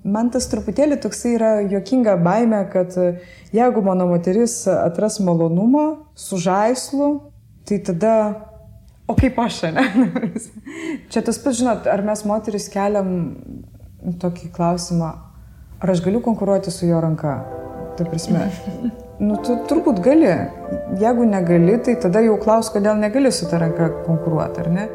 Man tas truputėlį toksai yra juokinga baimė, kad jeigu mano moteris atras malonumą su žaislu, tai tada, o kaip aš, ne? Čia tas pats, žinot, ar mes moteris keliam tokį klausimą, ar aš galiu konkuruoti su jo ranka? Ta prasme, tu turbūt gali. Jeigu negali, tai tada jau klaus, kodėl negali su ta ranka konkuruoti, ar ne?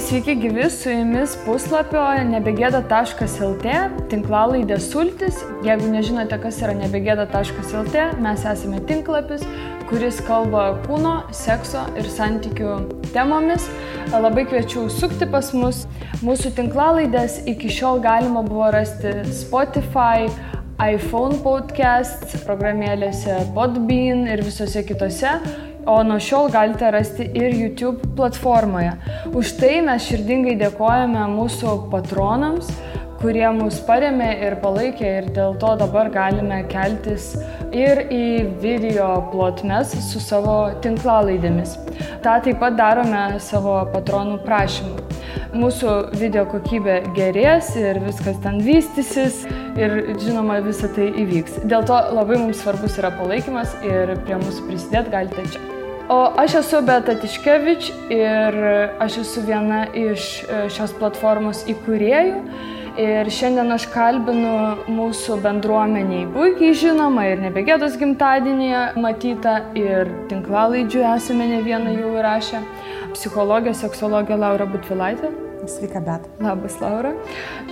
Sveiki gyvi, su jumis puslapio nebegėda.lt tinklalaidė Sultis. Jeigu nežinote, kas yra nebegėda.lt, mes esame tinklapis, kuris kalba kūno, sekso ir santykių temomis. Labai kviečiu sukti pas mus. Mūsų tinklalaidės iki šiol galima buvo rasti Spotify, iPhone podcast, programėlėse Podbean ir visose kitose. O nuo šiol galite rasti ir YouTube platformoje. Už tai mes širdingai dėkojame mūsų patronams, kurie mus parėmė ir palaikė ir dėl to dabar galime keltis ir į video plotmes su savo tinklalaidėmis. Ta taip pat darome savo patronų prašymų. Mūsų video kokybė gerės ir viskas ten vystysis ir žinoma visą tai įvyks. Dėl to labai mums svarbus yra palaikymas ir prie mūsų prisidėti galite čia. O aš esu Beata Tiškevič ir aš esu viena iš šios platformos įkūrėjų ir šiandien aš kalbinu mūsų bendruomeniai puikiai žinoma ir nebegėdos gimtadienyje matyta ir tinklalaidžių esame ne vieną jau įrašę. Psichologė, seksologė Laura Butvilaitė. Sveika, Beata. Labas, Laura.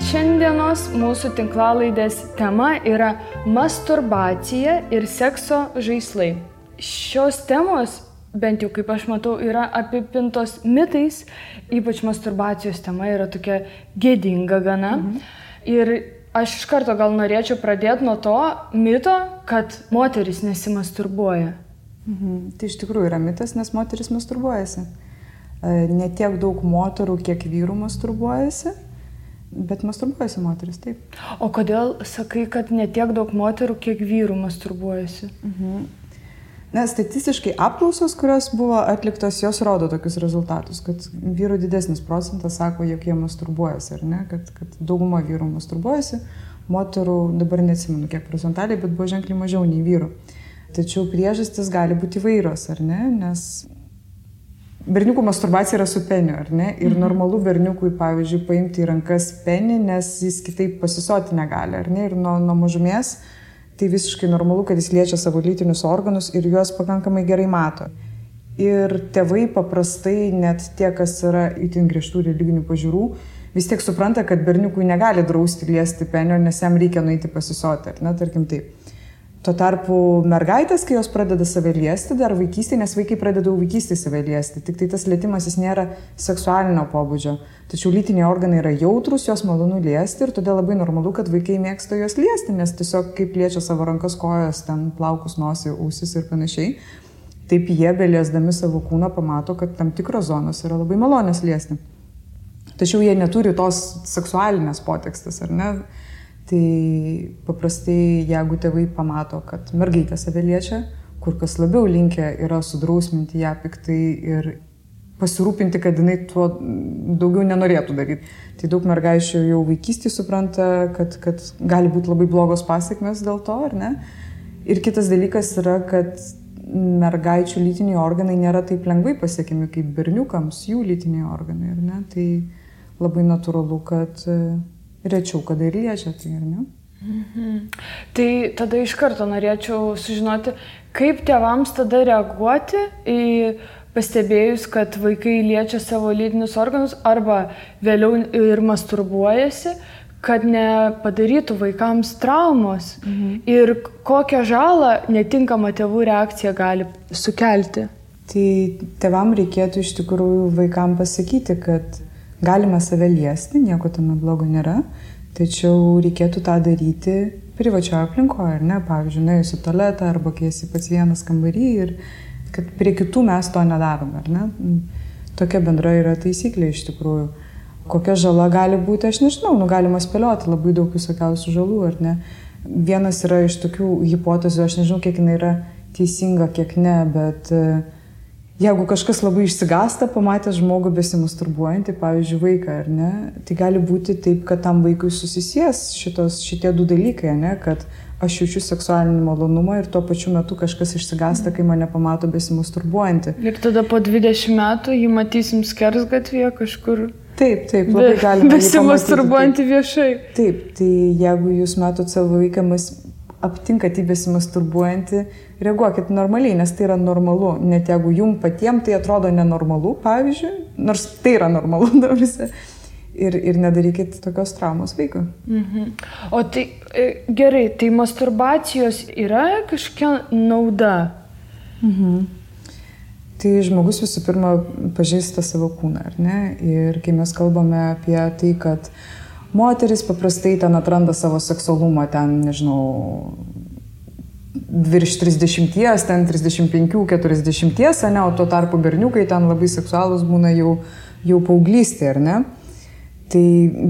Šiandienos mūsų tinklalaidės tema yra masturbacija ir sekso žaislai. Šios temos, bent jau kaip aš matau, yra apipintos mitais, ypač masturbacijos tema yra tokia gėdinga gana. Ir aš iš karto gal norėčiau pradėti nuo to mito, kad moteris nesimasturbuoja. Tai iš tikrųjų yra mitas, nes moteris masturbuojasi. Ne tiek daug moterų, kiek vyrų masturbuojasi, bet masturbuojasi moteris, taip. O kodėl sakai, kad ne tiek daug moterų, kiek vyrų masturbuojasi? Na, statistiškai apklausos, kurios buvo atliktos, jos rodo tokius rezultatus, kad vyrų didesnis procentas sako, jog jie masturbuojasi, ar ne, kad dauguma vyrų masturbuojasi, moterų dabar neatsimenu kiek procentaliai, bet buvo ženkliai mažiau nei vyrų. Tačiau priežastis gali būti įvairios, ar ne, nes berniukų masturbacija yra su peniu, ar ne, ir normalu berniukui, pavyzdžiui, paimti į rankas penį, nes jis kitaip pasisoti negali, ar ne, ir nuo mažumės tai visiškai normalu, kad jis liečia savo lytinius organus ir juos pakankamai gerai mato. Ir tėvai paprastai, net tie, kas yra itin griežtų religinių pažiūrų, vis tiek supranta, kad berniukui negali drausti liesti penio, nes jam reikia nueiti pasisoti, ar ne, tarkim taip. Tuo tarpu mergaitės, kai jos pradeda save liesti, dar vaikystėje, nes vaikai pradeda vaikystėje save liesti, tik tai tas lietimas jis nėra seksualinio pobūdžio. Tačiau lytiniai organai yra jautrus, jos malonu liesti ir todėl labai normalu, kad vaikai mėgsta jos liesti, nes tiesiog kaip liečia savo rankas, kojas, ten plaukus, nosį, ausis ir panašiai, taip jie beliesdami savo kūną pamato, kad tam tikros zonos yra labai malonios liesti. Tačiau jie neturi tos seksualinės potekstės, ar ne? Tai paprastai, jeigu tėvai pamato, kad mergaitė save liečia, kur kas labiau linkę yra sudrausminti ją piktai ir pasirūpinti, kad jinai tuo daugiau nenorėtų daryti. Tai daug mergaičių jau vaikystėje supranta, kad gali būti labai blogos pasekmės dėl to, ar ne? Ir kitas dalykas yra, kad mergaičių lytiniai organai nėra taip lengvai pasiekiami kaip berniukams, jų lytiniai organai, ar ne? Tai labai natūralu, kad rečiau kada ir liečia, tai ar ne? Tai tada iš karto norėčiau sužinoti, kaip tėvams tada reaguoti į pastebėjus, kad vaikai liečia savo lytinius organus arba vėliau ir masturbuojasi, kad nepadarytų vaikams traumos ir kokią žalą netinkama tėvų reakcija gali sukelti. Tai tėvam reikėtų iš tikrųjų vaikam pasakyti, kad galima save liesti, nieko tame blogo nėra, tačiau reikėtų tą daryti privačioje aplinkoje, ar ne? Pavyzdžiui, nuėjus į tualetą arba kai esi pats vienas kambarį ir kad prie kitų mes to nedarome, ar ne? Tokia bendra yra taisyklė iš tikrųjų. Kokia žala gali būti, aš nežinau, galima spėlioti labai daug visokiausių žalų, ar ne? Vienas yra iš tokių hipotezių, aš nežinau, kiek jinai yra teisinga, kiek ne, bet jeigu kažkas labai išsigąsta, pamatęs žmogų besimasturbuojantį, pavyzdžiui, vaiką, ar ne, tai gali būti taip, kad tam vaikui susisies šitie du dalykai, ne, kad aš jaučiu seksualinį malonumą ir tuo pačiu metu kažkas išsigąsta, kai mane pamato besimasturbuojantį. Ir tada po 20 metų jį matysim skersgatvėje kažkur. Taip, labai galima. Besimasturbuojantį viešai. Taip, tai jeigu jūs matot savo vaiką, aptinkat jį besimasturbuojantį, reaguokit normaliai, nes tai yra normalu. Net jeigu jum patiems tai atrodo nenormalu, pavyzdžiui, nors tai yra normalu, dabarisi. Ir nedarykit tokios traumos vaikui. O tai gerai, tai masturbacijos yra kažkokia nauda? Tai žmogus visų pirma pažįsta savo kūną, ar ne? Ir kai mes kalbame apie tai, kad moteris paprastai ten atranda savo seksualumą, ten, nežinau, virš 30, ten 35, 40, ne, o tuo tarpu berniukai ten labai seksualūs būna jau paauglystė, ar ne? Tai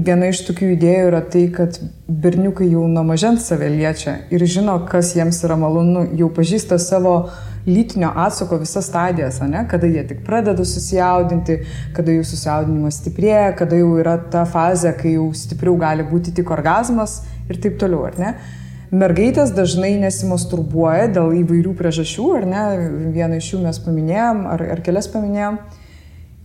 viena iš tokių idėjų yra tai, kad berniukai jau nuo mažens save liečia ir žino, kas jiems yra malonu, jau pažįsta savo lytinio atsako visas stadijas, ne? Kada jie tik pradeda susijaudinti, kada jų susijaudinimas stiprėja, kada jau yra ta fazė, kai jau stipriau gali būti tik orgazmas ir taip toliau, ar ne? Mergaitės dažnai nesimasturbuoja dėl įvairių priežasčių, ar ne? Vieną iš jų mes paminėjom, ar kelias paminėjom.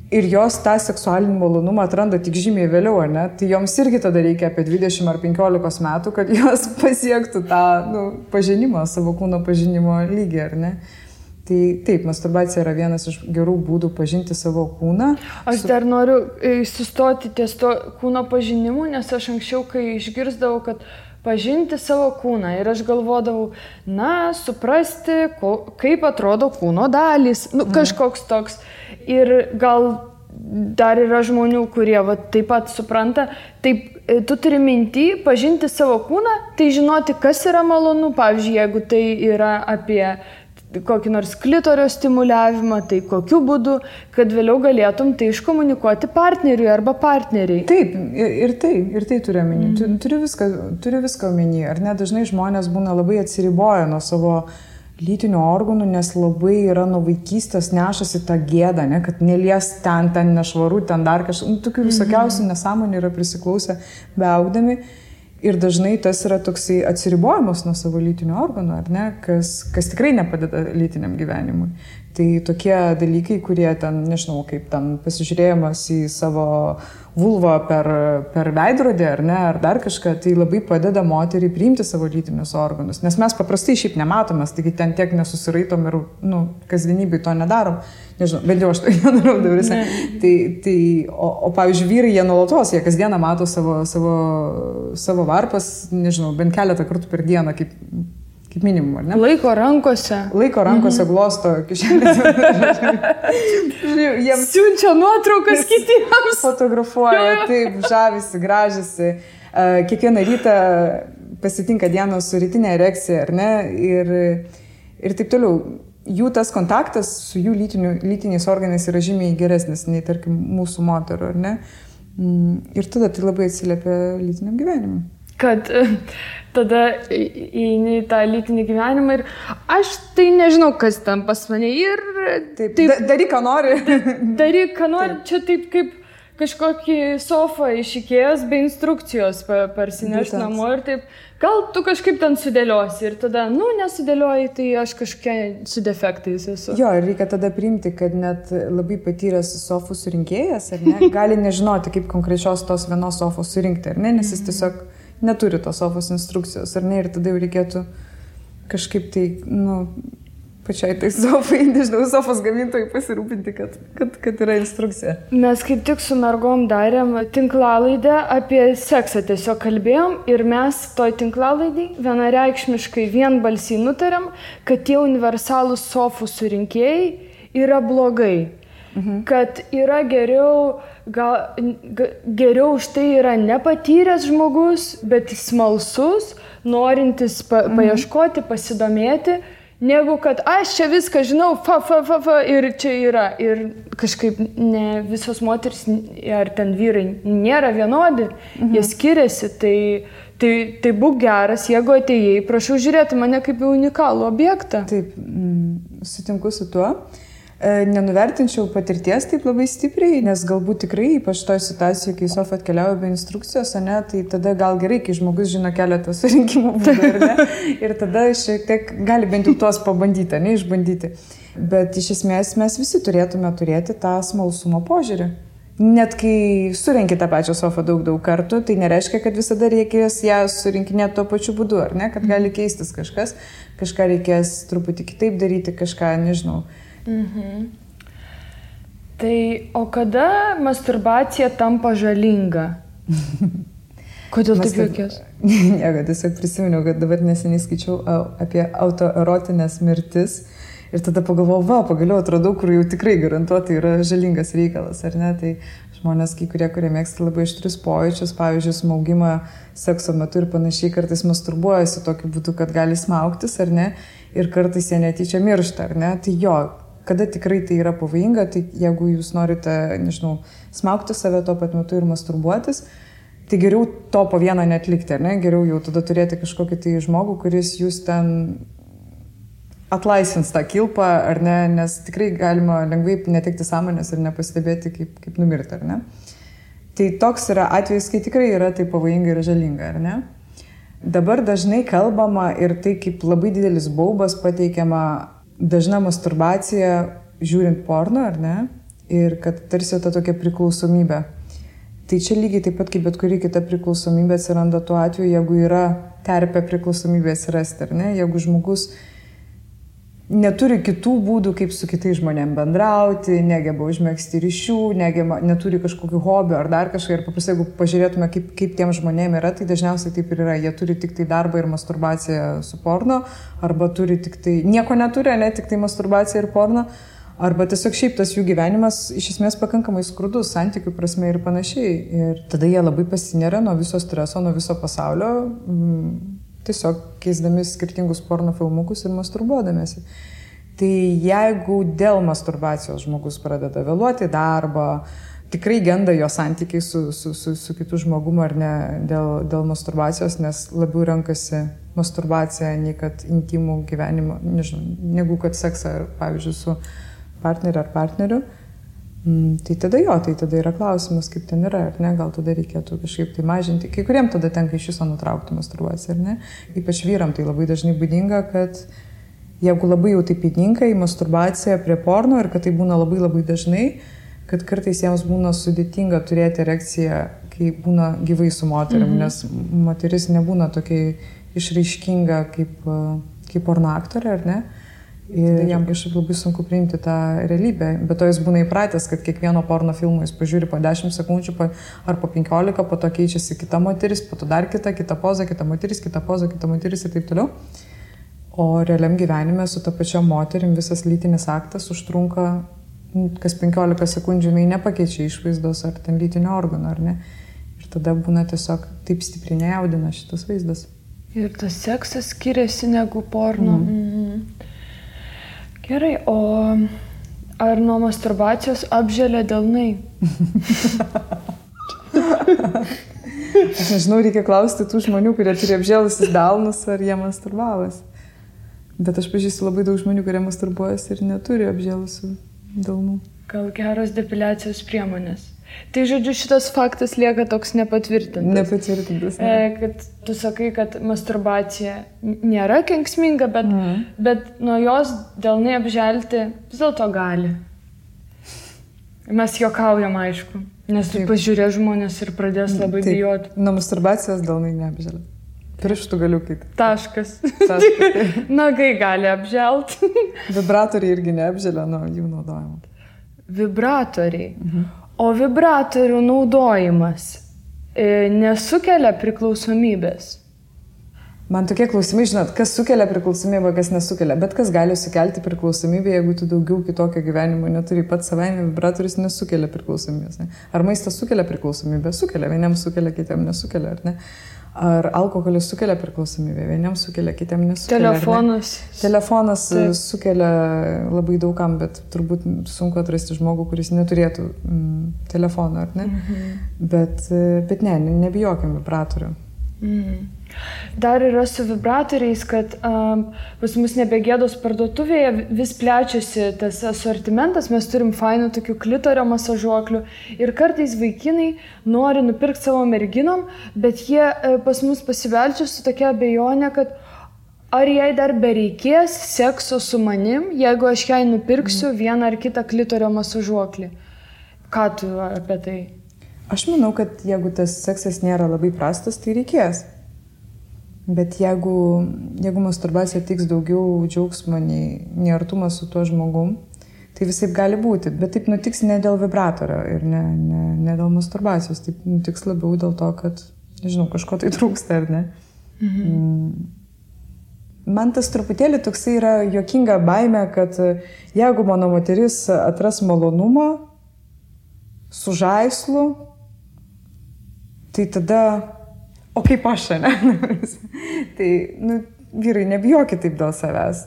Ir jos tą seksualinį malonumą atranda tik žymiai vėliau, ar ne? Tai joms irgi tada reikia apie 20 ar 15 metų, kad jos pasiektų tą pažinimą, savo kūno pažinimo lygį, ar ne? Tai taip, masturbacija yra vienas iš gerų būdų pažinti savo kūną. Aš dar noriu sustoti ties to kūno pažinimu, nes aš anksčiau, kai išgirsdavau, kad pažinti savo kūną ir aš galvodavau, suprasti, kaip atrodo kūno dalys, kažkoks toks. Ir gal dar yra žmonių, kurie taip pat supranta, taip, tu turi minty pažinti savo kūną, tai žinoti, kas yra malonu, pavyzdžiui, jeigu tai yra apie kokį nors klitorio stimuliavimą, tai kokiu būdu, kad vėliau galėtum tai iškomunikuoti partneriui arba partneriai. Taip, ir tai turiu omeny. Turiu viską omeny. Ar ne, dažnai žmonės būna labai atsiriboję nuo savo lytinių organų, nes labai yra nuo vaikystės nešasi tą gėdą, ne, kad nelies ten nešvaru, ten dar kažkas, tokių visokiausių nesąmonių yra prisiklausę beaugdami. Ir dažnai tas yra toksai atsiribojimas nuo savo lytinių organų, ar ne, kas tikrai nepadeda lytiniam gyvenimui. Tai tokie dalykai, kurie ten, nežinau, kaip ten pasižiūrėjimas į savo vulvą per veidrodį, ar ne, ar dar kažką, tai labai padeda moteriai priimti savo lytinius organus. Nes mes paprastai šiaip nematomės, taigi ten tiek nesusiraitom ir, kasdienybėj to nedarom. Nežinau, bent jau aš to nedarau dabarisi. O pavyzdžiui, vyrai, jie nuolatos, jie kasdieną mato savo varpas, nežinau, bent keletą kartų per dieną, kaip minimum, ar ne? Laiko rankose glosto kišenės. Siunčia nuotraukas kitiems. Fotografuoja, taip, žavisi, gražisi. Kiekvieną rytą pasitinka dienos su rytinė erekcija, ar ne? Ir taip toliau. Jų tas kontaktas su jų lytiniais organais yra žymiai geresnis nei, tarkim, mūsų moterų, ar ne? Ir tada tai labai atsiliepia lytiniam gyvenimui. Kad tada įeini į tą lytinį gyvenimą ir aš tai nežinau, kas ten pas mane ir... Taip. Daryk, ką nori. Daryk, ką nori. Čia taip kaip kažkokį sofą iš Ikėjos be instrukcijos parsineš namo ir taip, gal tu kažkaip ten sudėliosi ir tada, nesudėlioji, tai aš kažkokia su defektais esu. Jo, ir reikia tada priimti, kad net labai patyręs sofų surinkėjas, ar ne, gali nežinoti, kaip konkrečios tos vienos sofos surinkti, ar ne, nes jis tiesiog neturi tos sofos instrukcijos, ar ne, ir tada jau reikėtų kažkaip tai, pačiai tai sofai, nežinau, sofos gamintojai pasirūpinti, kad yra instrukcija. Mes kaip tik su mergom darėm tinklalaidę apie seksą, tiesiog kalbėjom ir mes toj tinklalaidai vienareikšmiškai vienbalsiai nutarėm, kad tie universalūs sofų surinkėjai yra blogai. Kad yra geriau už tai yra nepatyręs žmogus, bet smalsus, norintis paieškoti, pasidomėti, negu kad aš čia viską žinau, ir čia yra. Ir kažkaip ne visos moteris ar ten vyrai nėra vienodi, jie skiriasi, Tai būk geras, jeigu atėjai, prašau žiūrėti mane kaip į unikalų objektą. Taip, sutinku su tuo. Nenuvertinčiau patirties taip labai stipriai, nes galbūt tikrai, ypač toje situacijoje, kai Sofa atkeliauja be instrukcijos, ne, tai tada gal gerai, kai žmogus žino keletą surinkimo būdų, ir tada šiek tiek gali bent jau tuos pabandyti, ne, išbandyti. Bet iš esmės mes visi turėtume turėti tą smalsumo požiūrį. Net kai surenki tą pačią Sofą daug kartų, tai nereiškia, kad visada reikės ją surinkinėti tuo pačiu būdu, ar ne, kad gali keistis kažkas, kažką reikės truputį kitaip daryti, kažką, nežinau. Tai o kada masturbacija tampa žalinga? Kodėl taip juokės? Ne, tiesiog prisiminiau, kad dabar neseniai skaičiau apie autoerotinės mirtis ir tada pagalvojau, pagaliau atradau, kur jau tikrai garantuotai yra žalingas reikalas, ar ne? Tai žmonės, kurie mėgsta labai aštrius pojūčius, pavyzdžiui, smaugimą sekso metu ir panašiai, kartais masturbuojasi tokiu būdu, kad gali smaugtis, ar ne? Ir kartais jie netyčia miršta, ar ne? Tai jo, kada tikrai tai yra pavojinga, tai jeigu jūs norite, nežinau, smaugti save tuo pat metu ir masturbuotis, tai geriau to po vieną netlikti, ar ne? Geriau jau tada turėti kažkokį tai žmogų, kuris jūs ten atlaisvins tą kilpą, ar ne? Nes tikrai galima lengvai netekti sąmonės ir nepastebėti, kaip numirti, ar ne? Tai toks yra atvejis, kai tikrai yra tai pavojinga ir žalinga, ar ne? Dabar dažnai kalbama ir tai kaip labai didelis baubas pateikiama dažna masturbacija žiūrint porno, ar ne? Ir kad tarsi ta tokia priklausomybė. Tai čia lygiai taip pat kaip bet kuri kita priklausomybė atsiranda tuo atveju, jeigu yra terpė priklausomybė atsirasti, ar ne? Jeigu žmogus neturi kitų būdų, kaip su kitais žmonėm bendrauti, negeba užmegzti ryšių, neturi kažkokių hobių ar dar kažką. Ir paprastai, jeigu pažiūrėtume, kaip tiem žmonėm yra, tai dažniausiai taip ir yra. Jie turi tik tai darbą ir masturbaciją su porno, arba turi tik tai, nieko neturi, ne tik tai masturbaciją ir porno, arba tiesiog šiaip tas jų gyvenimas iš esmės pakankamai skurdus, santykių prasme ir panašiai. Ir tada jie labai pasineria nuo viso streso, nuo viso pasaulio, tiesiog keisdami skirtingus porno filmukus ir masturbuodamėsi. Tai jeigu dėl masturbacijos žmogus pradeda vėluoti darbą, tikrai genda jo santykiai su kitu žmogumu ar ne dėl masturbacijos, nes labiau renkasi masturbaciją nei kad intimų gyvenimą, nežinau, negu kad seksą, pavyzdžiui, su partneriu ar partneriu. Tai tada yra klausimas, kaip ten yra, ar ne, gal tada reikėtų kažkaip tai mažinti. Kai kuriem tada tenka iš viso nutraukti masturbaciją, ar ne? Ypač vyram tai labai dažnai būdinga, kad jeigu labai jau taip įninka į masturbaciją prie porno ir kad tai būna labai labai dažnai, kad kartais jiems būna sudėtinga turėti erekciją, kai būna gyvai su moterim, nes moteris nebūna tokia išraiškinga kaip porno aktorė, ar ne? Ir jam kažkaip labai sunku priimti tą realybę. Bet to jis būna įpratęs, kad kiekvieno porno filmo jis pažiūri po 10 sekundžių ar po 15, po to keičiasi kita moteris, po to dar kita poza, kita moteris, kita poza, kita moteris ir taip toliau. O realiam gyvenime su ta pačia moterim visas lytinis aktas užtrunka kas 15 sekundžių, jinai nepakeičia išvaizdos ar ten lytinio organo, ar ne. Ir tada būna tiesiog taip stipriai nejaudina šitas vaizdas. Ir tas seksas skiriasi negu porno. Gerai, o ar nuo masturbacijos apželia delnai? Aš nežinau, reikia klausti tų žmonių, kurie turi apžėlusius delnus, ar jie masturbavas. Bet aš pažįstu labai daug žmonių, kurie masturbuojas ir neturi apžėlusių delnų. Gal geros depiliacijos priemonės? Tai žodžiu, šitas faktas lieka toks nepatvirtintas. Nepatvirtintas. Ne. Kad tu sakai, kad masturbacija nėra kenksminga, bet nuo jos delnai apželti vis dėlto gali. Mes juokaujam, aišku, nes pažiūrė žmonės ir pradės labai bijoti. Nuo masturbacijos delnai neapželia. Pirštų galiukai. Taškas. Nagai gali apželti. Vibratoriai irgi neapželia nuo jų naudojimo. Vibratoriai. O vibratorių naudojimas nesukelia priklausomybės? Man tokie klausimai, žinot, kas sukelia priklausomybę, kas nesukelia. Bet kas gali sukelti priklausomybę, jeigu tu daugiau kitokio gyvenimo neturi. Pats savaime vibratorius nesukelia priklausomybės. Ne? Ar maistas sukelia priklausomybę? Sukelia. Vieniems sukelia, kitiems nesukelia, ar ne? Ar alkoholis sukelia priklausomybę? Vieniems sukelia, kitiems nesukelia. Telefonas sukelia labai daugam, bet turbūt sunku atrasti žmogų, kuris neturėtų telefono, ar ne? Bet ne, nebijokim vibratorių. Dar yra su vibratoriais, kad pas mus Nebegėdos parduotuvėje vis plečiasi tas asortimentas, mes turim fainų tokių klitorio masažuoklių ir kartais vaikinai nori nupirkti savo merginom, bet jie pas mus pasibeldžia su tokia abejonė, kad ar jai dar bereikės sekso su manim, jeigu aš jai nupirksiu vieną ar kitą klitorio masažuoklį. Ką tu apie tai? Aš manau, kad jeigu tas seksas nėra labai prastas, tai reikės. Bet jeigu masturbacija tiks daugiau džiaugsmo nei artumas su tuo žmogum, tai visaip gali būti. Bet taip nutiks ne dėl vibratorio ir ne dėl masturbacijos. Taip nutiks labiau dėl to, kad, nežinau, kažko tai trūksta, ar ne? Man tas truputėlį toksai yra juokinga baimė, kad jeigu mano moteris atras malonumą su žaislu, tai tada, o kaip aš, ne? Tai, vyrai, nebijokit taip dėl savęs.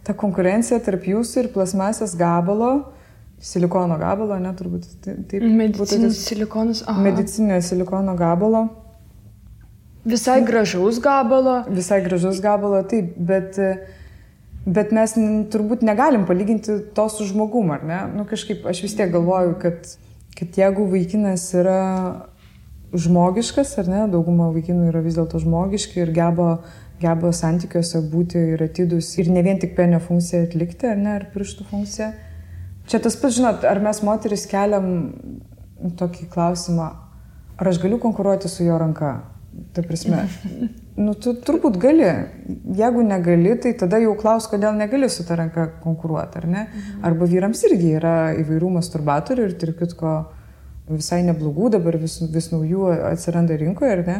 Ta konkurencija tarp jūsų ir plasmasės gabalo, silikono gabalo, ne, turbūt. Medicinis silikonas, aha. Medicinio silikono gabalo. Visai gražaus gabalo. Visai gražaus gabalo, taip, bet mes turbūt negalim palyginti to su žmogum, ar ne? Kažkaip aš vis tiek galvoju, kad jeigu vaikinas yra žmogiškas, ar ne, dauguma vaikinų yra vis dėlto žmogiški ir geba santykiuose būti ir atidus ir ne vien tik penio funkciją atlikti, ar ne, ar pirštų funkciją. Čia tas pats, žinot, ar mes moteris keliam tokį klausimą, ar aš galiu konkuruoti su jo ranka? Ta prasme, tu turbūt gali. Jeigu negali, tai tada jau klaus, kodėl negali su ta ranka konkuruoti, ar ne? Arba vyrams irgi yra įvairių masturbatorių ir tarp kitko visai neblogų, dabar vis naujų atsiranda rinkoje, ar ne?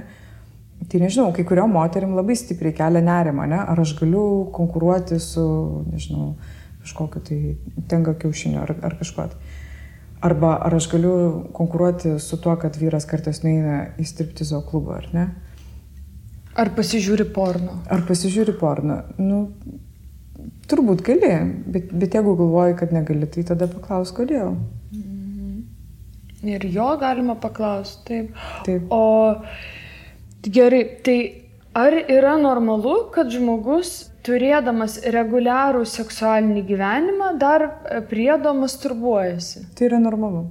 Tai nežinau, kai kuriom moterim labai stipriai kelia nerimą, ne? Ar aš galiu konkuruoti su, nežinau, kažkokiu tai tenga kiaušiniu ar kažkuo. Arba ar aš galiu konkuruoti su tuo, kad vyras kartais nueina į striptizo klubą, ar ne? Ar pasižiūri porno? Turbūt gali, bet jeigu galvoji, kad negali, tai tada paklaus, kodėl. Ir jo galima paklausti, Taip. O gerai, tai ar yra normalu, kad žmogus turėdamas reguliarų seksualinį gyvenimą, dar priedo masturbuojasi? Tai yra normalu.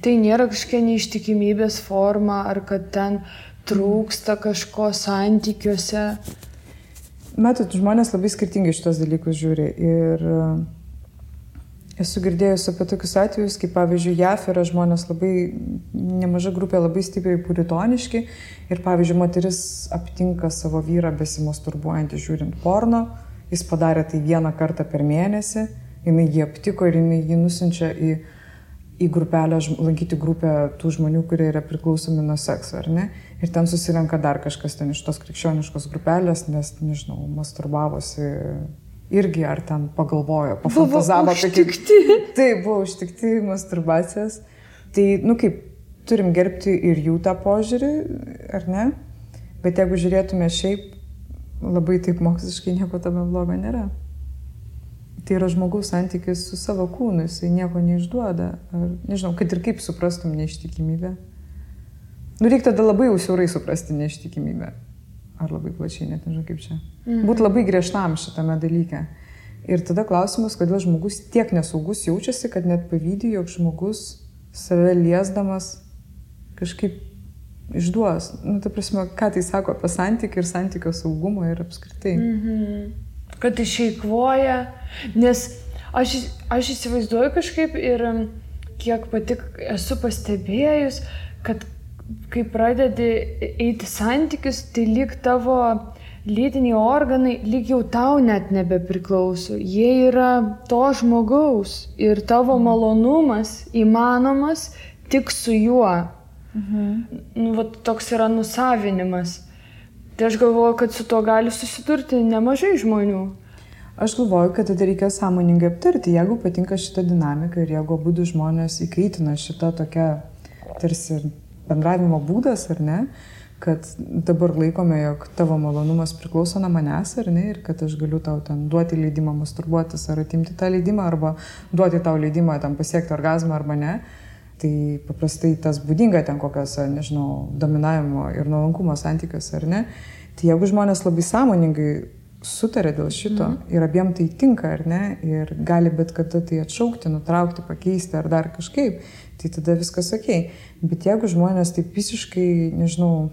Tai nėra kažkokia neištikimybės forma, ar kad ten trūksta kažko santykiuose? Matot, žmonės labai skirtingai šitos dalykus žiūri. Ir esu girdėjus apie tokius atvejus, kaip pavyzdžiui, JAF yra žmonės labai, nemaža grupė labai stipriai puritoniški ir pavyzdžiui, moteris aptinka savo vyrą besimasturbuojantį žiūrint porno, jis padarė tai vieną kartą per mėnesį, jinai jį aptiko ir jinai jį nusinčia į grupelę, lankyti grupę tų žmonių, kurie yra priklausomi nuo sekso, ar ne? Ir ten susirenka dar kažkas ten iš tos krikščioniškos grupelės, nes, nežinau, masturbavosi irgi, ar ten pagalvojo, pafantazavo. Buvo užtikti. Taip, buvo užtikti masturbacijos. Tai, kaip, turim gerbti ir jų tą požiūrį, ar ne? Bet jeigu žiūrėtume šiaip, labai taip moksliškai nieko tame blogo nėra. Tai yra žmogaus santykis su savo kūnu, jisai nieko neišduoda. Ar, nežinau, kad ir kaip suprastum neištikimybę. Reikia tada labai jau siaurai suprasti neištikimybę. Ar labai plačiai, net nežinau kaip čia. Būt labai griežtam šitame dalyke. Ir tada klausimas, kodėl žmogus tiek nesaugus jaučiasi, kad net pavydi, jog žmogus save liesdamas kažkaip išduos. Ta prasme, ką tai sako apie santykį ir santykio saugumą ir apskritai. Kad išeikvoja, nes aš įsivaizduoju kažkaip ir kiek pati esu pastebėjus, kad kai pradedi eiti santykius, tai lyg tavo lytiniai organai, lyg jau tau net nebepriklauso. Jie yra to žmogaus ir tavo malonumas įmanomas tik su juo. Toks yra nusavinimas. Tai aš galvoju, kad su to gali susidurti nemažai žmonių. Aš galvoju, kad tada reikia sąmoningai aptarti, jeigu patinka šita dinamika ir jeigu abudu žmonės įkaitina šitą tokią tarsi bendravimo būdas, ar ne, kad dabar laikome, jog tavo malonumas priklauso nuo manęs, ar ne, ir kad aš galiu tau ten duoti leidimą masturbuotis ar atimti tą leidimą, arba duoti tau leidimą tam pasiekti orgazmą arba ne. Tai paprastai tas būdinga ten kokiose, nežinau, dominavimo ir nuolankumo santykiuose, ar ne? Tai jeigu žmonės labai sąmoningai sutarė dėl šito ir abiem tai tinka, ar ne, ir gali bet kada tai atšaukti, nutraukti, pakeisti ar dar kažkaip, tai tada viskas okei. Bet jeigu žmonės taip visiškai, nežinau,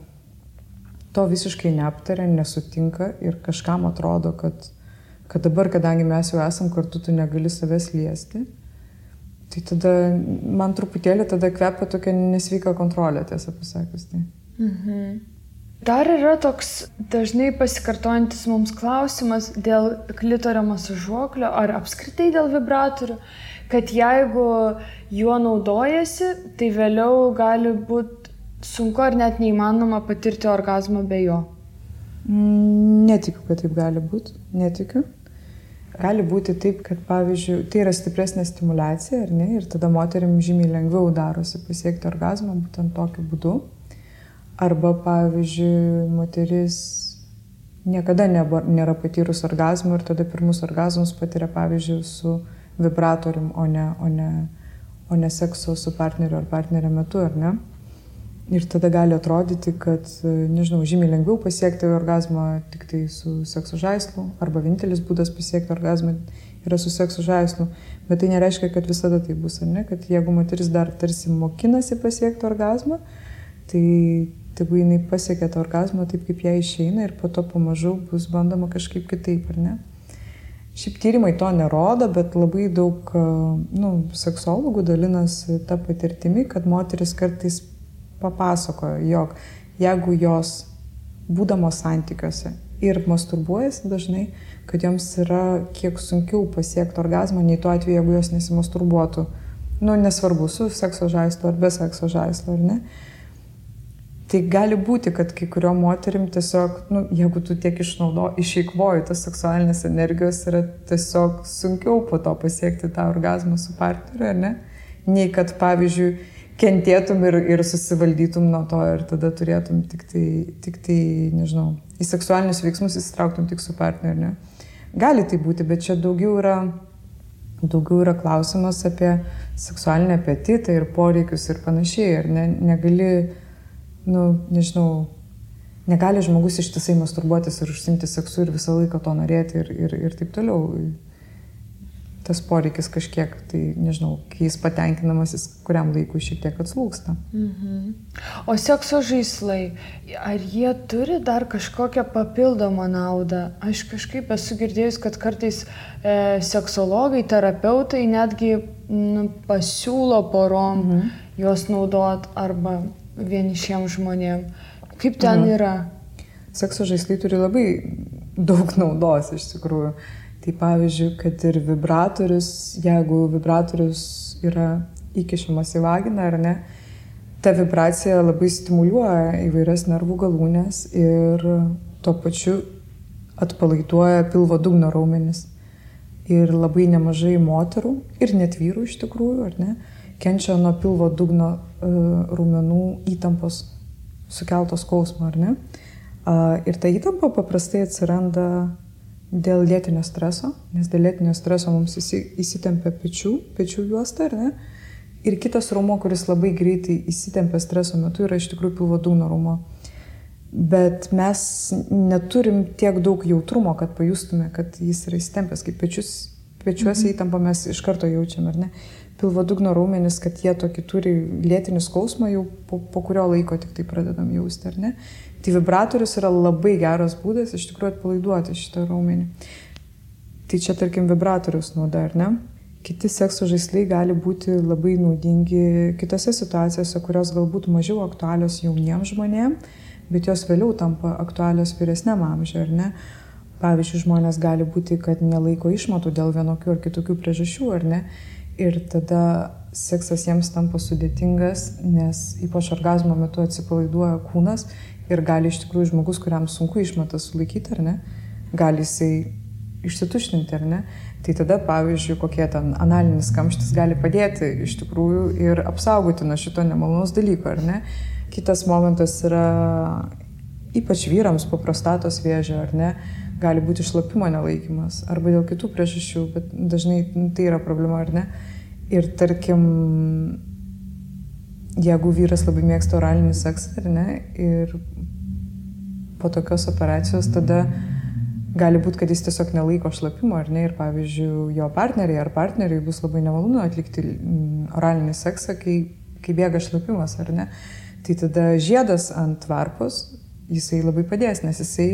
to visiškai neaptarė, nesutinka ir kažkam atrodo, kad dabar, kadangi mes jau esam kartu, tu negali savęs liesti, tai tada man truputėlį tada kvepia tokia nesveika kontrolė, tiesą pasakius. Tai. Dar yra toks dažnai pasikartojantis mums klausimas dėl klitorio masažuoklio ar apskritai dėl vibratorių, kad jeigu juo naudojasi, tai vėliau gali būti sunku ar net neįmanoma patirti orgazmą be jo. Netikiu, kad taip gali būti. Netikiu. Gali būti taip, kad, pavyzdžiui, tai yra stipresnė stimulacija, ar ne, ir tada moterim žymiai lengviau darosi pasiekti orgazmą būtent tokiu būdu. Arba, pavyzdžiui, moteris niekada nėra patyrus orgazmų ir tada pirmus orgazmus patiria, pavyzdžiui, su vibratorium, o ne sekso su partneriu ar partnerio metu, ar ne? Ir tada gali atrodyti, kad, nežinau, žymiai lengviau pasiekti orgazmą tik tai su sekso žaislu, arba vienintelis būdas pasiekti orgazmą yra su sekso žaislu. Bet tai nereiškia, kad visada tai bus, ar ne? Kad jeigu moteris dar tarsi mokinasi pasiekti orgazmą, tai tegu jinai pasiekia tą orgazmą taip, kaip jai išeina ir po to pamažu bus bandoma kažkaip kitaip, ar ne? Šiaip tyrimai to nerodo, bet labai daug seksologų dalinasi tą patirtimi, kad moteris kartais papasakojo, jog jeigu jos būdamos santykiuose ir masturbuojasi dažnai, kad joms yra kiek sunkiau pasiekti orgazmą, nei tuo atveju, jeigu jos nesimasturbuotų. Nesvarbu, su sekso žaislu ar be sekso žaislu, ar ne. Tai gali būti, kad kai kurio moterim tiesiog, jeigu tu tiek išeikvoji tos seksualinės energijos, yra tiesiog sunkiau po to pasiekti tą orgazmą su partneriu, ar ne? Nei kad, pavyzdžiui, kentėtum ir susivaldytum nuo to ir tada turėtum tik tai, nežinau, į seksualinius veiksmus įsitrauktum tik su partneriu, ne? Gali tai būti, bet čia daugiau yra klausimas apie seksualinį apetitą ir poreikius ir panašiai, ar ne? Negali žmogus ištisai masturbuotis ir užsiimti seksu ir visą laiką to norėti ir taip toliau. Tas poreikis kažkiek, tai nežinau, kai jis patenkinamas, jis kuriam laikui šiek tiek atslūgsta. O sekso žaislai, ar jie turi dar kažkokią papildomą naudą? Aš kažkaip esu girdėjus, kad kartais seksologai, terapeutai netgi pasiūlo porom juos naudot arba vienišiems žmonėm. Kaip ten yra? Sekso žaislai turi labai daug naudos iš tikrųjų. Tai pavyzdžiui, kad ir vibratorius, jeigu vibratorius yra įkišamas į vaginą, ar ne, ta vibracija labai stimuliuoja įvairias nervų galūnes ir tuo pačiu atpalaiduoja pilvo dugno raumenis. Ir labai nemažai moterų, ir net vyrų iš tikrųjų, ar ne, kenčia nuo pilvo dugno raumenų įtampos sukeltos skausmo, ar ne. Ir ta įtampa paprastai atsiranda dėl lėtinio streso, nes dėl lėtinio streso mums įsitempia pečių juosta, ar ne? Ir kitas raumuo, kuris labai greitai įsitempia streso metu, yra iš tikrųjų pilvo dugno raumuo. Bet mes neturim tiek daug jautrumo, kad pajustume, kad jis yra įsitempęs, kaip pečiuose įtampą mes iš karto jaučiam, ar ne? Pilvo dugno raumenis, kad jie tokį turi lėtinį skausmą, jau po kurio laiko tik tai pradedam jausti, ar ne? Tai vibratorius yra labai geras būdas iš tikrųjų atpalaiduoti šitą raumenį. Tai čia, tarkim, vibratorius nauda, ar ne? Kiti sekso žaislai gali būti labai naudingi kitose situacijose, kurios galbūt mažiau aktualios jauniems žmonėms, bet jos vėliau tampa aktualios vyresniam amžiui, ar ne? Pavyzdžiui, žmonės gali būti, kad nelaiko išmatų dėl vienokių ar kitokių priežasčių, ar ne? Ir tada seksas jiems tampa sudėtingas, nes ypač orgazmo metu atsipalaiduoja kūnas ir gali iš tikrųjų žmogus, kuriam sunku išmatą sulaikyti, ar ne, gali jisai išsituštinti, ar ne. Tai tada, pavyzdžiui, kokie ten analinis kamštis gali padėti iš tikrųjų ir apsaugoti nuo šito nemalonaus dalyko, ar ne. Kitas momentas yra ypač vyrams po prostatos vėžio, ar ne, gali būti šlapimo nelaikymas arba dėl kitų priežasčių, bet dažnai tai yra problema, ar ne. Ir tarkim, jeigu vyras labai mėgsta oralinį seksą, ar ne, ir po tokios operacijos tada gali būti, kad jis tiesiog nelaiko šlapimo, ar ne, ir pavyzdžiui, jo partneriai ar partneriai bus labai nemalonu atlikti oralinį seksą, kai bėga šlapimas, ar ne. Tai tada žiedas ant varpos, jisai labai padės, nes jisai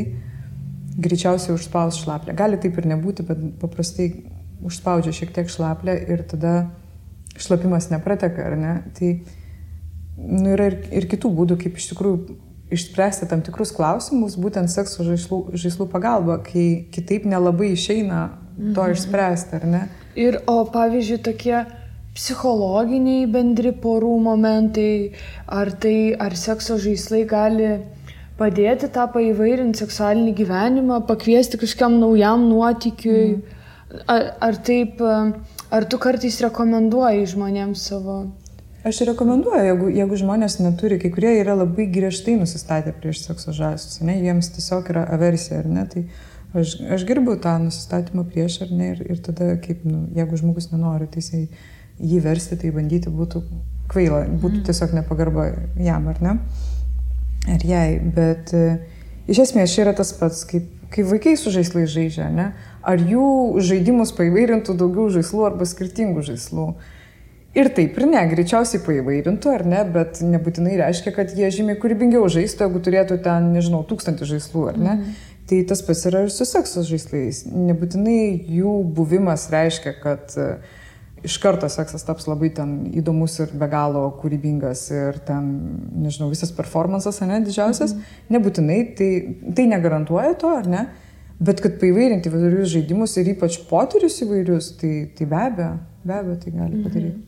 greičiausiai užspaus šlaplę. Gali taip ir nebūti, bet paprastai užspaudžia šiek tiek šlaplę ir tada šlapimas neprateka, ar ne. Tai yra ir kitų būdų, kaip iš tikrųjų išspręsti tam tikrus klausimus, būtent sekso žaislų pagalba, kai kitaip nelabai išeina to išspręsti, ar ne? O pavyzdžiui, tokie psichologiniai bendri porų momentai, ar sekso žaislai gali padėti tą paįvairinti seksualinį gyvenimą, pakviesti kažkam naujam nuotykiui, ar tu kartais rekomenduoji žmonėms savo? Aš rekomenduoju, jeigu žmonės neturi, kai kurie yra labai griežtai nusistatę prieš sekso žaislus, ne, jiems tiesiog yra aversija, ar ne, tai aš gerbiu tą nusistatymą prieš, ar ne, ir tada, kaip, jeigu žmogus nenori, tai jį versti, tai bandyti būtų kvaila, būtų tiesiog nepagarba jam, ar ne, ar jai, bet iš esmės čia yra tas pats, kaip vaikai su žaislais žaidžia, ne, ar jų žaidimus paįvairintų daugiau žaislų arba skirtingų žaislų. Ir taip ir ne, greičiausiai paįvairintų, ar ne, bet nebūtinai reiškia, kad jie žymiai kūrybingiau žaistų, jeigu turėtų ten, 1000 žaislų, ar ne. Tai tas pats yra ir su sekso žaislais. Nebūtinai jų buvimas reiškia, kad iš karto seksas taps labai ten įdomus ir be galo kūrybingas ir ten, visas performances, ne, didžiausias. Nebūtinai, tai negarantuoja to, ar ne, bet kad paįvairinti įvairius žaidimus ir ypač potyrius įvairius, tai be abejo tai gali padaryti.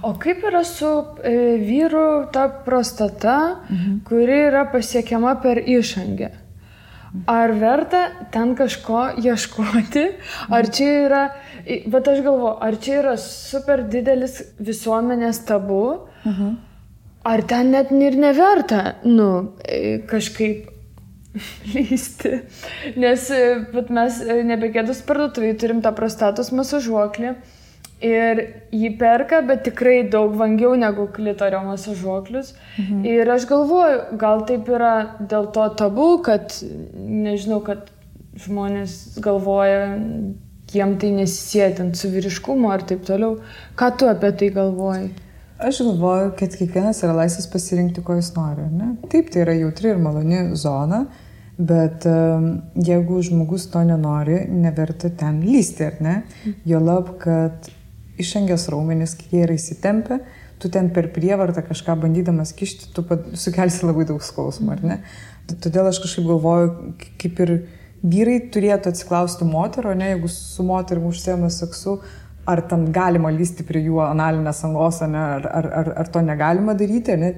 O kaip yra su vyrų ta prostata, kuri yra pasiekiama per išangę? Ar verta ten kažko ieškoti? Ar čia yra, bet aš galvoju, ar čia yra super didelis visuomenės tabu? Ar ten net ir neverta, kažkaip lysti? Nes mes nebegėdus parduotuvėje turim tą prostatos masažuoklį. Ir jį perka, bet tikrai daug vangiau negu klitorio masažuoklius. Ir aš galvoju, gal taip yra dėl to tabu, kad, kad žmonės galvoja, jiem tai nesisėtent su vyriškumu ar taip toliau. Ką tu apie tai galvoji? Aš galvoju, kad kiekvienas yra laisvas pasirinkti, ko jis nori, ne? Taip, tai yra jautri ir maloni zona, bet jeigu žmogus to nenori, neverta ten lysti, ar ne? Juolab, kad išangės raumenys, kai jie yra įsitempę, tu ten per prievartą kažką bandydamas kišti, tu sukelsi labai daug skausmo, ar ne? Todėl aš kažkaip galvoju, kaip ir vyrai turėtų atsiklausti moterų, ne, jeigu su moterim užsiema seksu, ar ten galima lysti prie jų analinės angos, ne, ar to negalima daryti, ne,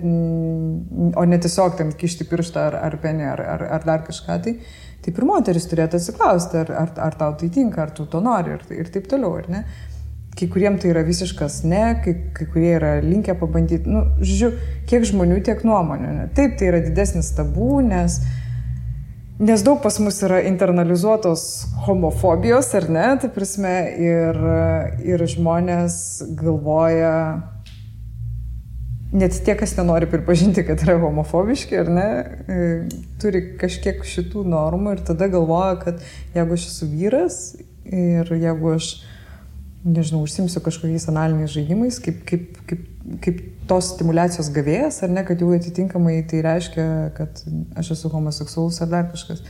o ne tiesiog ten kišti pirštą ar penį, ar dar kažką. Tai ir moteris turėtų atsiklausti, ar tau tai tinka, ar tu to nori ir taip toliau, ar ne? Kai kuriem tai yra visiškas ne, kai kurie yra linkę pabandyti, žiūrėjau, kiek žmonių, tiek nuomonių. Ne? Taip, tai yra didesnis tabų, nes daug pas mus yra internalizuotos homofobijos, ar ne, tai prasme, ir žmonės galvoja, net tie, kas nenori pripažinti, kad yra homofobiški, ar ne, turi kažkiek šitų normų ir tada galvoja, kad jeigu aš esu vyras ir jeigu aš užsimsiu kažkokiais analiniais žaidimais, kaip tos stimulacijos gavėjas, ar ne, kad jau atitinkamai tai reiškia, kad aš esu homoseksualus ar dar kažkas.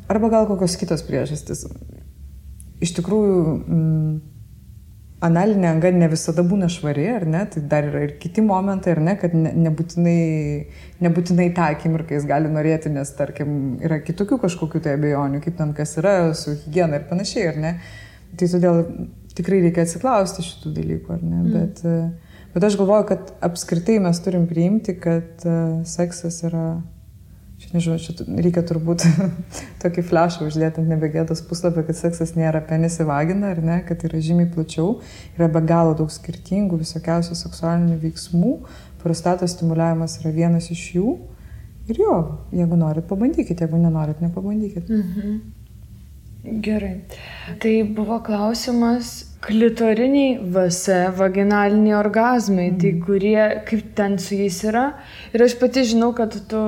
Arba gal kokios kitos priežastys. Iš tikrųjų, analinė anga ne visada būna švari, ar ne, tai dar yra ir kiti momentai, ar ne, kad nebūtinai tą akimirką jis gali norėti, nes, tarkim, yra kitokių kažkokių tai abejonių, kaip ten kas yra su higiena ir panašiai, ar ne. Tai todėl tikrai reikia atsiklausti šitų dalykų, ar ne, bet aš galvoju, kad apskritai mes turim priimti, kad seksas yra, čia reikia turbūt tokį flešą uždėti ant nebegėdos puslapį, kad seksas nėra penis į vaginą, ar ne, kad yra žymiai plačiau, yra be galo daug skirtingų visokiausių seksualinių veiksmų, prostatos stimuliavimas yra vienas iš jų ir jo, jeigu norit, pabandykit, jeigu nenorit, nepabandykit. Gerai. Tai buvo klausimas, klitoriniai VS, vaginaliniai orgazmai, tai kurie, kaip ten su jais yra. Ir aš pati žinau, kad tu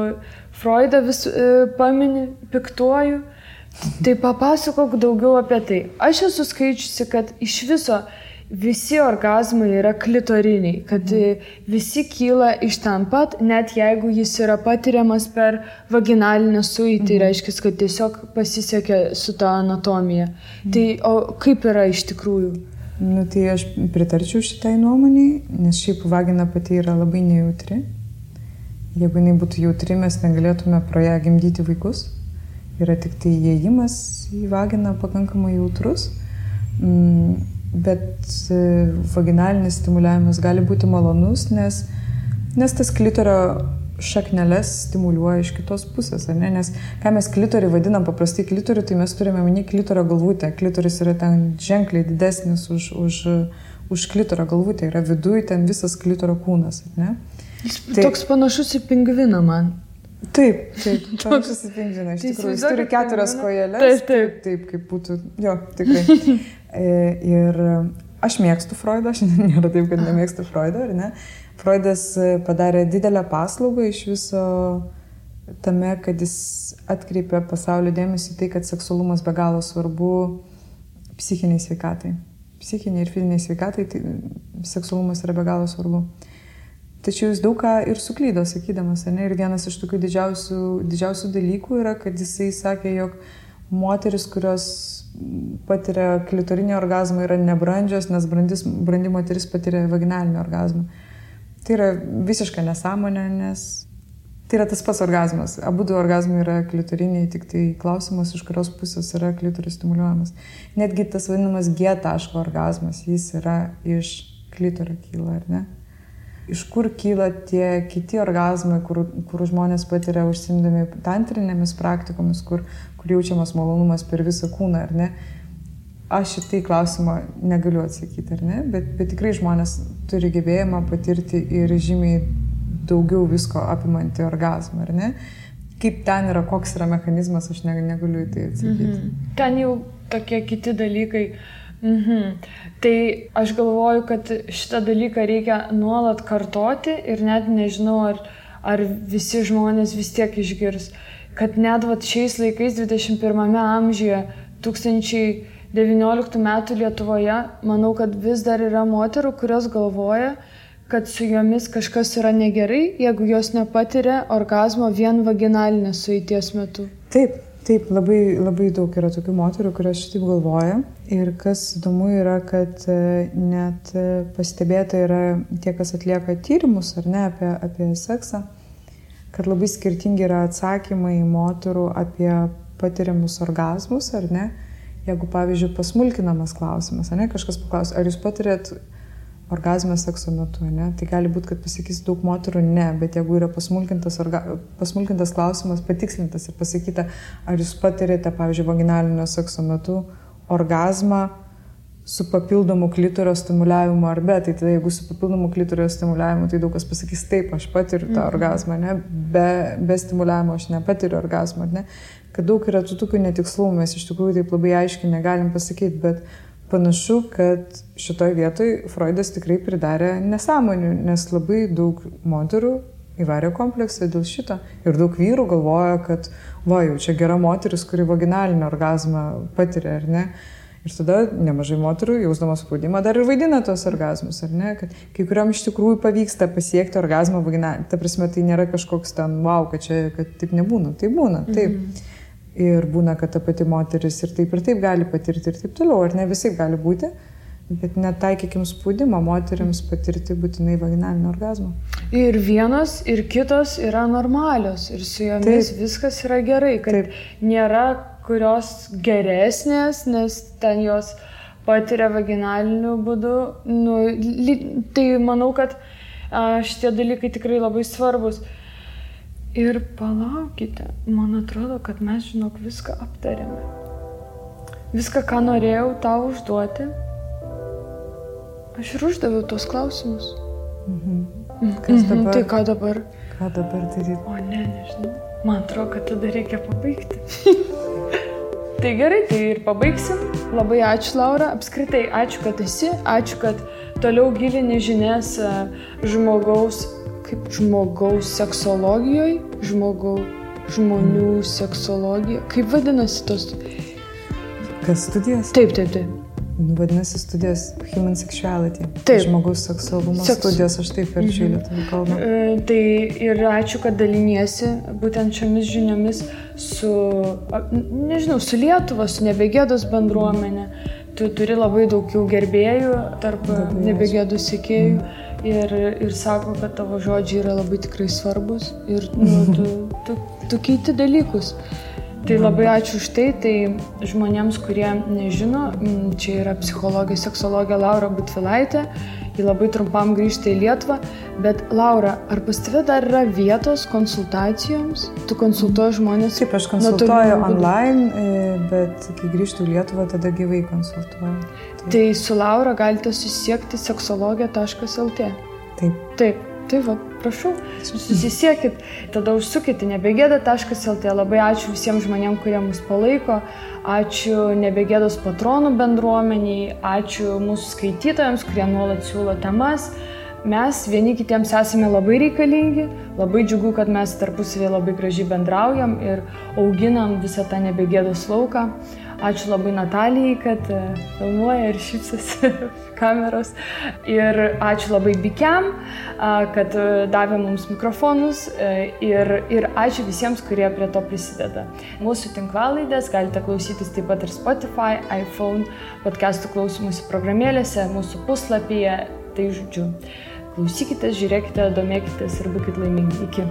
Freudą vis pamini, piktuoju. Tai papasakok daugiau apie tai. Aš esu skaičiusi, kad iš viso visi orgazmai yra klitoriniai, kad visi kyla iš ten pat, net jeigu jis yra patiriamas per vaginalinę suitį, reiškia, kad tiesiog pasisekė su ta anatomija. Tai o kaip yra iš tikrųjų? Nu, tai aš pritarčiau šitai nuomoniai, nes šiaip vagina pati yra labai nejautri. Jeigu jinai būtų jautri, mes negalėtume pro ją gimdyti vaikus. Yra tik tai įėjimas į vaginą pakankamai jautrus, bet vaginalinis stimuliavimas gali būti malonus, nes tas klitorio šakneles stimuliuoja iš kitos pusės, ar ne? Nes ką mes klitorį vadinam paprastai klitorių, tai mes turime omeny klitorio galvutę. Klitoris yra ten ženkliai didesnis už klitorio galvutę, yra viduj ten visas klitorio kūnas, ar ne? Jis toks panašus į pingviną man. Taip, panašus į pingviną, iš tikrųjų. Jis turi 4 kojeles. Taip, kaip būtų, jo, tikrai. Ir aš mėgstu Freudą, aš nėra taip, kad nemėgstu Freudą, ar ne? Freudas padarė didelę paslaugą iš viso tame, kad jis atkreipė pasaulio dėmesį tai, kad seksualumas be galo svarbu psichiniai sveikatai. Psichiniai ir fiziniai sveikatai, tai seksualumas yra be galo svarbu. Tačiau jis daug ką ir suklydo, sakydamas, ne? Ir vienas iš tokių didžiausių dalykų yra, kad jisai sakė, jog moteris, kurios patiria klitorinį orgazmą, yra nebrandžios, nes brandi moteris patiria vaginalinį orgazmą. Tai yra visiška nesąmonė, nes tai yra tas pats orgazmas. Abudu orgazmai yra klitoriniai, tik tai klausimas, iš kurios pusės yra klitoris stimuliuojamas. Netgi tas vadinamas G taško orgazmas, jis yra iš klitorio kyla, ar ne? Iš kur kyla tie kiti orgazmai, kur žmonės patiria užsiimdami tantrinėmis praktikomis, kur jaučiamas malonumas per visą kūną, ar ne? Aš šitai klausimą negaliu atsakyti, ar ne? Bet tikrai žmonės turi gebėjimą patirti ir žymiai daugiau visko apimantį orgazmą, ar ne? Kaip ten yra, koks yra mechanizmas, aš negaliu į tai atsakyti. Ten jau tokie kiti dalykai. Tai aš galvoju, kad šitą dalyką reikia nuolat kartoti ir net nežinau, ar visi žmonės vis tiek išgirs, kad net šiais laikais 21 amžiuje 2019 metų Lietuvoje, manau, kad vis dar yra moterų, kurios galvoja, kad su jomis kažkas yra negerai, jeigu jos nepatiria orgazmo vien vaginalinės sueities metu. Taip, labai daug yra tokių moterų, kurios šitaip galvoja. Ir kas įdomu yra, kad net pastebėta yra tie, kas atlieka tyrimus, ar ne, apie seksą, kad labai skirtingi yra atsakymai moterų apie patiriamus orgazmus, ar ne. Jeigu, pavyzdžiui, pasmulkinamas klausimas, ar ne, kažkas paklaus, ar jūs patirėt orgazmą sekso metu, ne? Tai gali būti, kad pasakys daug moterų ne, bet jeigu yra pasmulkintas klausimas, patikslintas ir pasakyta, ar jūs patirėte, pavyzdžiui, vaginalinio sekso metu orgazmą su papildomu klitorio stimuliavimu ar be, tai tada jeigu su papildomu klitorio stimuliavimu, tai daug kas pasakys taip, aš patiriu tą orgazmą, ne? Be stimuliavimo aš nepatiriu orgazmą, ne? Kad daug yra tokių netikslumų, mes iš tikrųjų taip labai aiškiai negalim pasakyti, bet panašu, kad šitoj vietoj Freudas tikrai pridarė nesąmonių, nes labai daug moterų įvarė kompleksą dėl šito. Ir daug vyrų galvoja, kad jau čia gera moteris, kuri vaginalinį orgazmą patiria, ar ne? Ir tada nemažai moterų, jausdamas spaudimą, dar ir vaidina tos orgazmus, ar ne? Kad kai kuriam iš tikrųjų pavyksta pasiekti orgazmą vaginalinį. Ta prasme, tai nėra kažkoks ten, kad taip nebūna. Tai būna, taip. Ir būna, kad ta pati moteris ir taip gali patirti ir taip toliau, ar ne visai gali būti, bet netaikykim spaudimą moteriams patirti būtinai vaginalinį orgazmą. Ir vienos, ir kitos yra normalios, ir su jomis viskas yra gerai, kad nėra kurios geresnės, nes ten jos patiria vaginaliniu būdu. Tai manau, kad šitie dalykai tikrai labai svarbus. Ir palaukite, man atrodo, kad mes, viską aptarėme. Viską, ką norėjau tau užduoti, aš ir uždaviau tos klausimus. Kas dabar? Tai ką dabar? Ką dabar daryti? O nežinau. Man atrodo, kad tada reikia pabaigti. Tai gerai, tai ir pabaigsim. Labai ačiū, Laura. Apskritai, ačiū, kad esi. Ačiū, kad toliau gilini žinias žmogaus seksologijoje, žmonių seksologijoje. Kaip vadinasi tos? Kas studijos? Taip. Vadinasi studijos Human Sexuality. Taip. Žmogaus seksualumo studijos, aš taip verčiu į lietuvių kalbą. Tai ir ačiū, kad daliniesi būtent šiomis žiniomis su Lietuva, su Nebegėdos bendruomenė. Tu turi labai daug jau gerbėjų tarp Nebegėdos sekėjų ir sako, kad tavo žodžiai yra labai tikrai svarbus ir tu keiti dalykus. Tai labai ačiū už tai, tai žmonėms, kurie nežino, čia yra psichologė, seksologė Laura Butvilaitė, ji labai trumpam grįžta į Lietuvą, bet Laura, ar pas tave dar yra vietos konsultacijoms? Tu konsultuoji žmonės? Taip, aš konsultuoju online, bet kai grįžtu į Lietuvą, tada gyvai konsultuoju. Tai su Laura galite susisiekti seksologija.lt. Taip. Tai va, prašau, susisiekit, tada užsukite nebegėda.lt. Labai ačiū visiems žmonėms, kurie mus palaiko, ačiū Nebegėdos patronų bendruomeniai, ačiū mūsų skaitytojams, kurie nuolat siūlo temas. Mes vieni kitiems esame labai reikalingi, labai džiugu, kad mes tarpusavėje labai gražiai bendraujam ir auginam visą tą Nebegėdos lauką. Ačiū labai Natalijai, kad filmuoja ir šypsosi kameros. Ir ačiū labai Bikiam, kad davė mums mikrofonus. Ir ačiū visiems, kurie prie to prisideda. Mūsų tinklalaidės galite klausytis taip pat ir Spotify, iPhone, podcastų klausymosi programėlėse, mūsų puslapyje. Tai žodžiu, klausykite, žiūrėkite, domėkitės ir būkite laimingi. Iki.